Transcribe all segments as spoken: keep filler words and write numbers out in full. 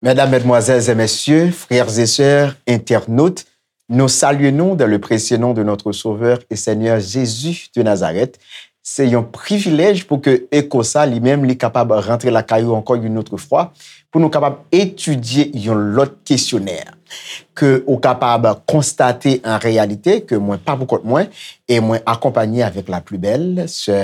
Mesdames, mesdemoiselles et messieurs, frères et sœurs, internautes, nous saluons nous dans le précieux nom de notre Sauveur et Seigneur Jésus de Nazareth. Se yon privilèj pou ke Eko sa li menm li kapab rantre lakay ou ankò yon lòt fwa, pou nou kapab etidye yon lòt kesyonè ke ou kapab konstate an reyalite ke mwen pa pou kont mwen e mwen akonpanye avèk la pli bèl sè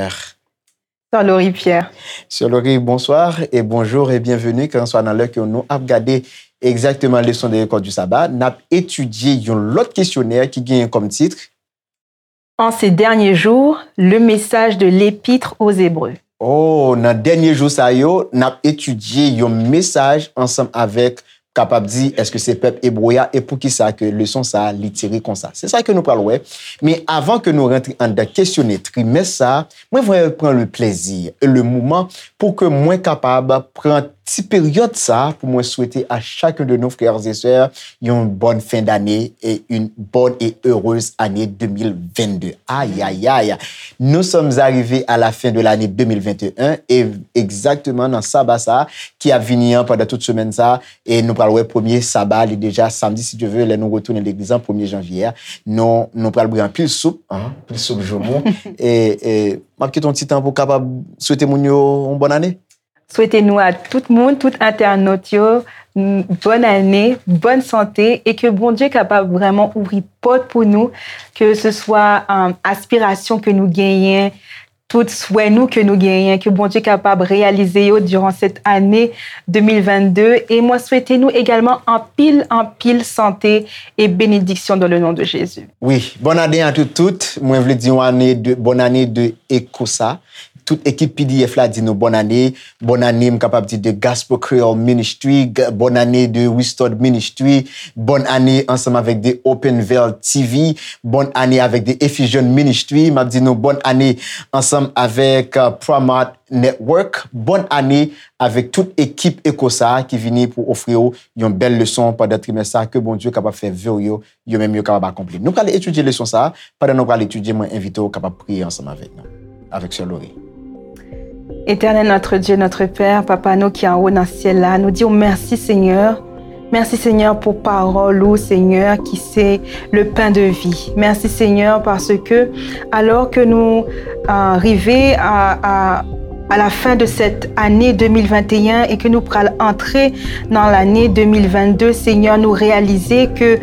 Sè Laurie Pierre. Sè Laurie, bonsoir et bonjour et bienvenue, kèlkanswa nan lè ke nou ap gade egzakteman leson de lekòl di saba, n ap etidye yon lòt kesyonè ki genyen kòm tit. En ces derniers jours, le message de l'Épître aux Hébreux. Oh, nan dènye jou sa yo, n ap etidye yon mesaj ansanm avèk kapab di èske se pèp ebre a e poukisa ke leson sa a li tire konsa. Se sa ke nou pral wè. Men avan ke nou rantre anndan kesyonè trimès sa a, mwen vle pran le plezi e le moman pou ke mwen kapab pran ti peryòd sa a pou mwen swete a chacun de nos frères et sœurs yon bòn fen dane e une bonne et heureuse année deux mille vingt-deux. Ayayay! Nous sommes arrivés à la fin de l'année deux mille vingt et un e egzakteman nan saba sa a ki ap vini an pandan tout semèn sa a, e nou pral wè premye saba li deja samdi si Dye ve lè nou retounen legliz an premye janvye a, nou nou pral bwè anpil soup, anpil soup joumou e e m ap kite yon ti tan pou kapab swete moun yo yon bòn ane. Swete nou a tout moun, tout entènot yo, bòn ane, bòn sante e ke Bondye kapab vrèman ouvri pòt pou nou, ke se swa aspirasyon ke nou genyen, tout swè nou ke nou genyen, ke Bondye kapab reyalize yo diran sèt ane de mil vennde. E mwen swete nou egalman anpil, anpil sante e benediksyon dans le nom de Jésus. Wi, bòn ane a tout, tout. Mwen vle di yon ane de, bòn ane de Ekosa. Tout ekip P D F la di nou bòn ane. Bòn ane, m kapab di de Gospel Creole Ministry. Bòn ane de Restored Ministry. Bòn ane ansanm avèk de Open Veil T V. Bòn ane avèk de Ephesian Ministry. M ap di nou bòn ane ansanm avèk Promat Network. Bòn ane avèk tout ekip Ekosa ki vini pou ofri w yon bèl leson pandan trimès sa. Ke Bondye kapab fè ve w yo yo menm yo kapab akonpli. Nou pral etidye leson sa a. Pandan nou pral etidye, mwen envite w kapab priye ansanm avèk nou, avèk sè Laurie. Éternel notre Dieu, notre Père, Papa nou ki anwo nan syèl la, nou di w mèsi Senyè. Mèsi Senyè pou pawòl ou Senyè ki se le pain de vie. Mèsi Senyè paske alò ke nou uh, rive a, a à la fin de cette année deux mille vingt et un et que nous pral entrer dans l'année deux mille vingt-deux, Seigneur, nous réaliser que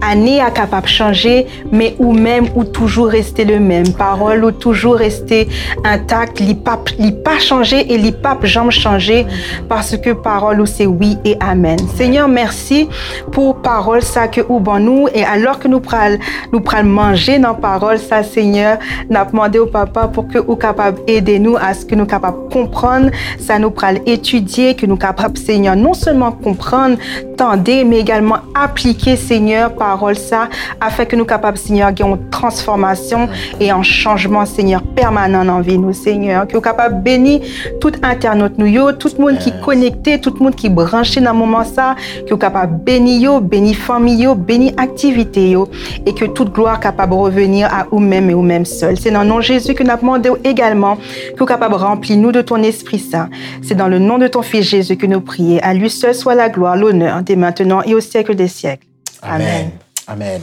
année a capable changer, mais ou même ou toujours rester le même. Parole ou toujours rester intact, li pas li pas changer et li pas jamais changer parce que parole ou c'est oui et amen. Seigneur, merci pour parole ça que ou ban nous et alors que nous pral nou pral manje nan pawòl sa Senyè. N ap mande w Papa pou ke ou kapab ede nou aske nou kapab konprann sa nou pral etidye, ke nou kapab Senyè non sèlman konprann, tande, men egalman aplike Senyè pawòl sa afin ke nou kapab Senyè gen yon transfòmasyon e yon chanjman Senyè pèmanan nan vi nou Senyè. Ke ou kapab beni tout entènot nou yo, tout moun ki konekte, tout moun ki branche nan moman sa, ke ou kapab beni yo, beni fanmi yo, beni aktivite yo, e ke tout glwa kapab reveni a ou menm e ou menm sèl. Se nan non Jezi ke n ap mande w egalman ke ou kapab ranpli nou de ton Esprit Saint. C'est dans le nom de ton Fils Jésus que nous prions. À lui seul soit la gloire, l'honneur, dès maintenant et au siècle des siècles. Amen. Amen.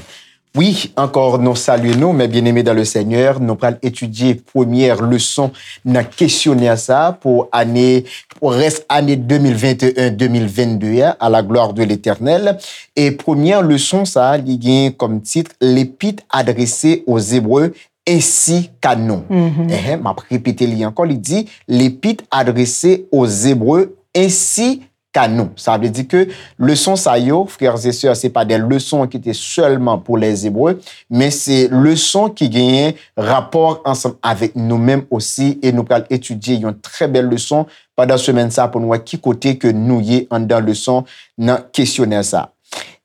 Wi, ankò nou salye nou, mes bien-aimés dans le Seigneur. Nou pral etidye premyè leson nan kesyonè sa pou ane, pou rès ane de mil venteyen, de mil vennde a, à la gloire de l'Éternel. E premyè leson sa, li gen kòm tit L'épître adressée aux Hébreux ainsi qu'à nous. Enhen, m ap repete li ankò, li di, L'épître adressée aux Hébreux ainsi qu'à nous. Sa vle di ke leson sa yo, frères et sœurs, se pa de leson ki te sèlman pou les Hébreux, men se leson ki genyen rapò ansanm avèk nou menm osi, e nou pral etidye yon trè bèl leson pandan semèn sa pou nou wè ki kote ke nou ye anndan leson nan kesyonè sa.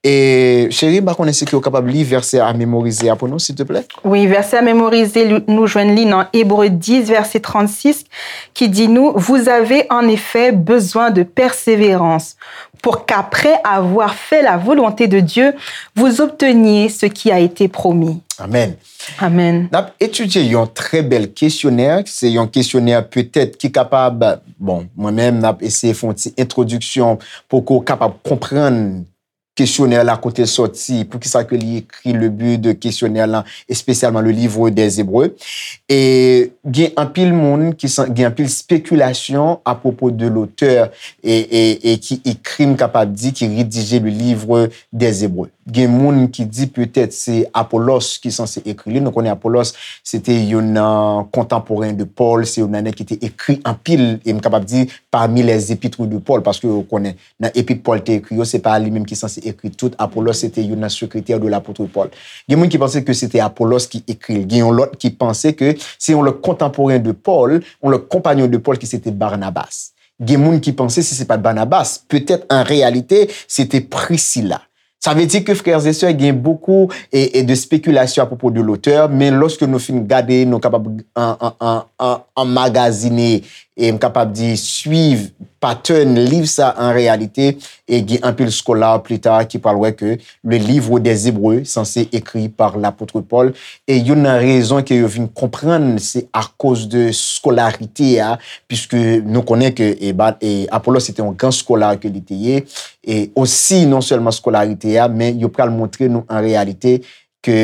E, cheri, m pa konnen si ke w kapab li vèsè a memorize a pou nou, silteplè? Wi, vèsè a memorize, li- nou jwenn li nan Ebre dis, vèsè trannsis, ki di nou, Vous avez en effet besoin de persévérance, pour qu'après avoir fait la volonté de Dieu, vous obteniez ce qui a été promis. Amèn. Amèn. N ap etidye yon trè bèl kesyonè. Se yon kesyonè petèt ki kapab, bon, mwen menm, n ap eseye fè yon ti entwodiksyon pou ke w kapab konprann kesyonè la, kote l sòti, poukisa ke li ekri le but de kesyonè la, espesyalman le livre des Hébreux. E gen anpil moun ki san, gen anpil spekilasyon apwopo de lotè e, e, e ki ekri, m kapab di, ki redije le livre des Hébreux. Gen moun ki di petèt se Apolos ki sanse ekri li. Nou konnen Apolos se te youn nan kontanporen de Pòl, se youn nan nèg ki te ekri anpil, e m kapab di pami les épîtres de Paul, paske ou konnen nan epit Pòl te ekri yo, se pa li menm ki sanse ekri tout. Apolos se te youn nan sekretè de lapot Pòl. Gen moun ki panse ke se te Apolos ki ekri l. Gen yon lòt ki panse ke se yon lòt kontanporen de Pòl, yon lòt konpanyon de Pòl ki se te Barnabas. Gen moun ki panse si se pa t Barnabas, petèt an reyalite, se te Prisila. Sa vle di ke, frères et sœurs, gen bokou e, e de spekilasyon apwopo de lotè, men lòske nou fin gade, nou kapab an, an, an, an, anmagazine, e m kapab di, swiv patèn liv sa an reyalite, e gen anpil skola pli ta ki pral wè ke le livre des Hébreux sanse ekri pa lapot Pòl, e youn nan rezon ke yo vin konprann se akoz de skolarite a, piske nou konnen ke e, ba- e Apolos se te yon gran skola ke li te ye, e osi non sèlman skolarite a, men yo pral montre nou an reyalite ke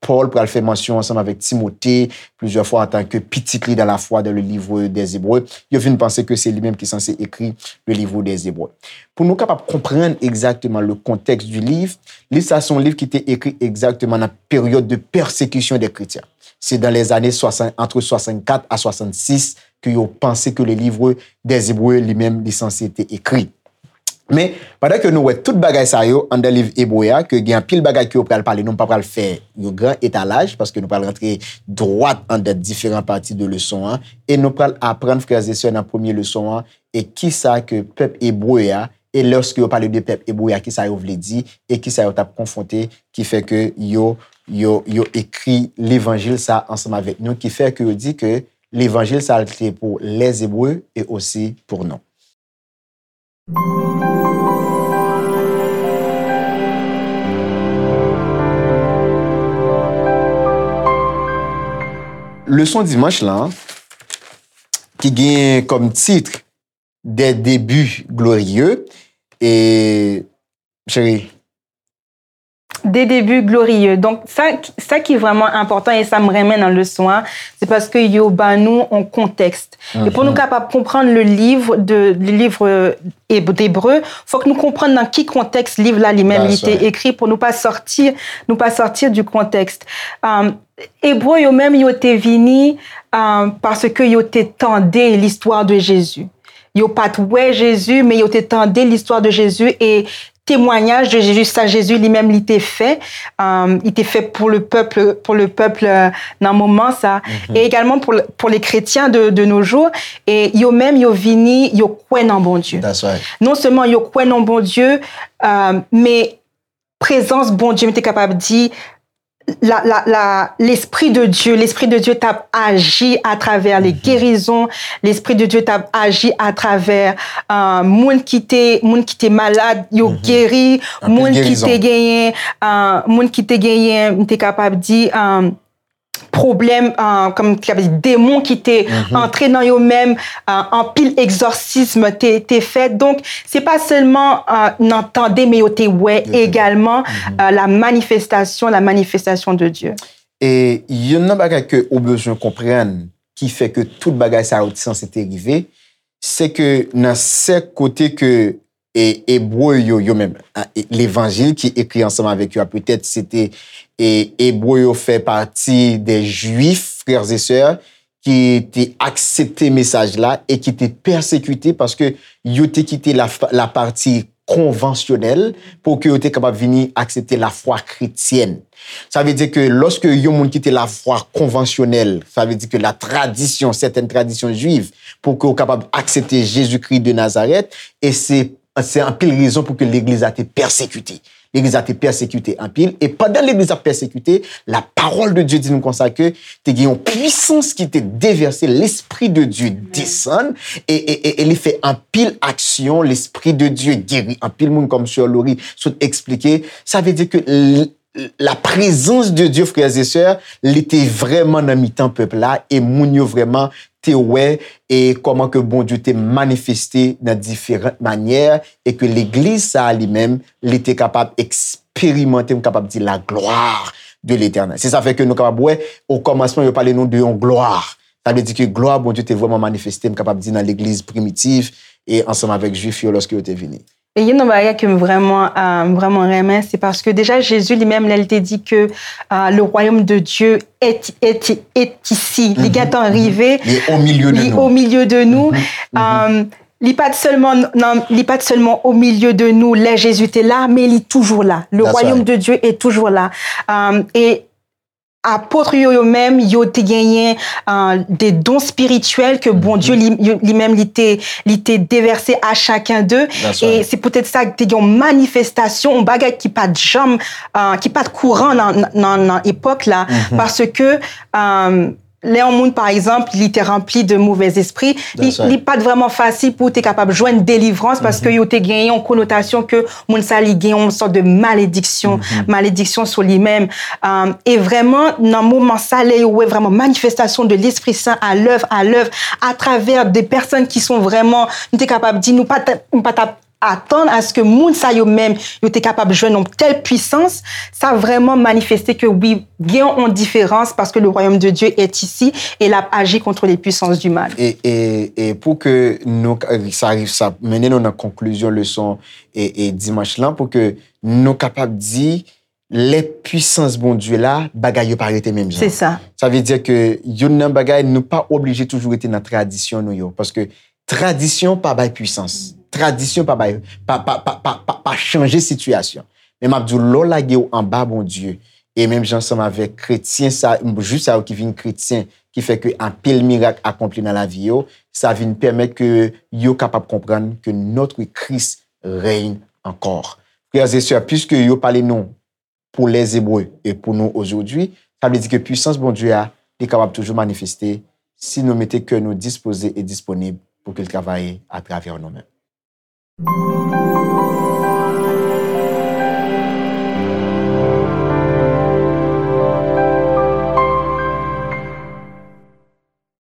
Pòl pral fè mansyon ansanm avèk Timote plizyè fwa antanke pitit li dans la foi dans le livre des Hébreux. Yo vin panse ke se li menm ki sanse ekri le livre des Hébreux. Pou nou kapab konprann egzakteman le contexte du livre, liv sa se yon liv ki te ekri egzakteman nan peryòd de pèsekisyon dè kretyen. Se dans les années soixante, entre soixante-quatre à soixante-six ke yo panse ke le livre des Hébreux li menm li sanse te ekri. Men, pandan ke nou wè tout bagay sa yo anndan liv Ebre a, ke gen anpil bagay ke yo pral pale, nou pa pral fè yon gran etalaj, paske nou pral rantre dwat anndan diferan pati de leson an, e nou pral aprann, frè e sè, nan premye leson an, e kisa ke pèp ebre a, e lòske yo pale de pèp ebre a, kisa yo vle di, e kisa yo t ap konfwonte, ki fè ke yo, yo, yo ekri levanjil sa ansanm avèk nou, ki fè ke yo di ke levanjil sa te pou les Hébreux e osi pou nou. Leson dimanch lan, ki gen kòm tit Des débuts glorieux, e, cheri, Des débuts glorieux. Donk, sa, sa ki vrèman enpòtan e sa m renmen nan leson an, se paske yo ba nou yon kontèks. E pou nou kapab konprann le livre de, le livre d'Hébreux, fòk nou konprann nan ki kontèks liv la li menm li te ekri pou nou pa sòti, nou pa sòti du contexte. Um, Ebre yo menm yo te vini um, paske yo te tande l'histoire de Jésus. Yo pa t wè Jezi, men yo te tande l'histoire de Jésus e temwanyaj de Jezi, sa Jezi li menm li te fè, um, li te fè pou le pèp, pou le pèp nan moman sa, e egalman pou, pou les chrétiens de, de nos jours, e yo menm yo vini, yo kwè nan Bondye. That's right. Non sèlman yo kwè nan Bondye, um, men prezans Bondye, m te kapab di, la, la, la, l'Esprit de Dieu, l'Esprit de Dieu t ap aji atravè les guérisons, l'Esprit de Dieu t ap aji atravè uh, moun ki te moun ki te malad, yo geri, moun ki te genyen, uh, moun ki te genyen, m te kapab di, um, pwoblèm, uh, kòm ki ap di, demon ki te antre nan yo menm, uh, anpil egzòsism te, te fèt. Donk, se pa sèlman uh, nan tande, men yo te wè egalman uh, la manifestation, la manifestation de Dieu. E youn nan bagay ke ou bezwen konprann ki fè ke tout bagay sa yo te sanse te rive, se ke nan sèk kote ke e, ebre yo, yo menm, a, e, levanjil ki ekri ansanm avèk yo a, petèt se te e, ebre yo fè pati de Jwif, frères et sœurs, ki te aksepte mesaj la e ki te pèsekite paske yo te kite la, la pati konvansyonèl pou ke yo te kapab vini aksepte lafwa kretyèn. Sa vle di ke lòske yon moun kite lafwa konvansyonèl, sa vle di ke la tradisyon, sètèn tradisyon jwiv, pou ke w kapab aksepte Jezikri de Nazarèt, e se, se anpil rezon pou ke legliz la te pèsekite. Legliz la te pèsekite anpil, e pandan legliz la ap pèsekite, la parole de Dieu di nou konsa ke te gen yon pwisans ki te devèse, Lespri de Dye desann, e, e, e, e li fè anpil aksyon, Lespri de Dye geri anpil moun, kòm sè Lori sot eksplike. Sa vle di ke l-, la prezans de Dye, frères et sœurs, li te vrèman nan mitan pèp la, e moun yo vrèman te wè e kòman ke Bondye te manifeste nan diferan manyè, e ke legliz sa a li menm, li te kapab eksperimante, m kapab di, la gloire de l'Éternel. Se sa fè ke nou kapab wè, o kòmansman, yo pale nou de yon glwa. Sa vle di ke glwa Bondye te vrèman manifeste, m kapab di, nan legliz primitiv e ansanm avèk Jwif yo lòske yo te vini. E youn nan bagay ke m vrèman, euh, m vrèman renmen, se paske deja Jezi li menm, lè l te di ke, euh, le royaume de Dieu est, est, est ici, li gentan rive, Li au milieu de li nous. Au milieu de nous. Euh, li pa t sèlman nan, li pa t sèlman au milieu de nous lè Jezi te la, men li toujou la. Le That's royaume right. De Dieu est toujours là. Euh, e apot yo, yo menm, yo te genyen, euh, de don spirityèl ke Bondye li, yo- li menm li te, li te devèse a chaken de. That's E right. Se poutèt sa ke te gen yon manifestasyon, yon bagay ki pa t janm, euh, ki pa t kouran nan, nan, nan epòk la, paske, euh, lè yon moun, pa egzanp, li te ranpli de movèzespri, li, That's right. Li pa t vrèman fasil pou te kapab jwenn delivrans, paske yo te genyen yon konotasyon ke moun sa li gen yon sòt de malediksyon, malediksyon sou li menm. Euh, e vrèman, nan moman sa, lè yo wè vrèman manifestasyon de Lespri Sen à l'œuvre, à l'œuvre, atravè de pèsonn ki son vrèman, nou te kapab di, nou pa t, nou pa t ap atann aske moun sa yo menm, yo te kapab jwenn yon tèl pwisans, sa vrèman manifeste ke wi, gen yon diferans, paske le royaume de Dieu est ici et l ap aji contre les puissances du mal. E, e, e pou ke nou, sa, sa mennen nou nan konklizyon leson e, e dimanch lan, pou ke nou kapab di, lè pwisans Bondye la, bagay yo pa rete menm jan. Se sa. Sa vle di ke youn nan bagay, nou pa oblije toujou rete nan tradisyon nou yo. Paske tradisyon pa bay pwisans. Tradisyon pa bay, pa, pa, pa, pa, pa, pa chanje sitiyasyon. Men m ap di w, lè w lage w anba Bondye, e menm jan ansanm avèk kretyen sa, jwif sa yo ki vin kretyen, ki fè ke anpil mirak akonpli nan lavi yo, sa vin pèmèt ke yo kapab konprann que notre Christ règne encore. Frères et sœurs, puisque yo pale nou pour les Hébreux et pour nous aujourd'hui, sa vle di ke pwisans Bondye a, li kapab toujou manifeste si nou mete kè nou dispoze e disponib pou ke l travay atravè nou menm.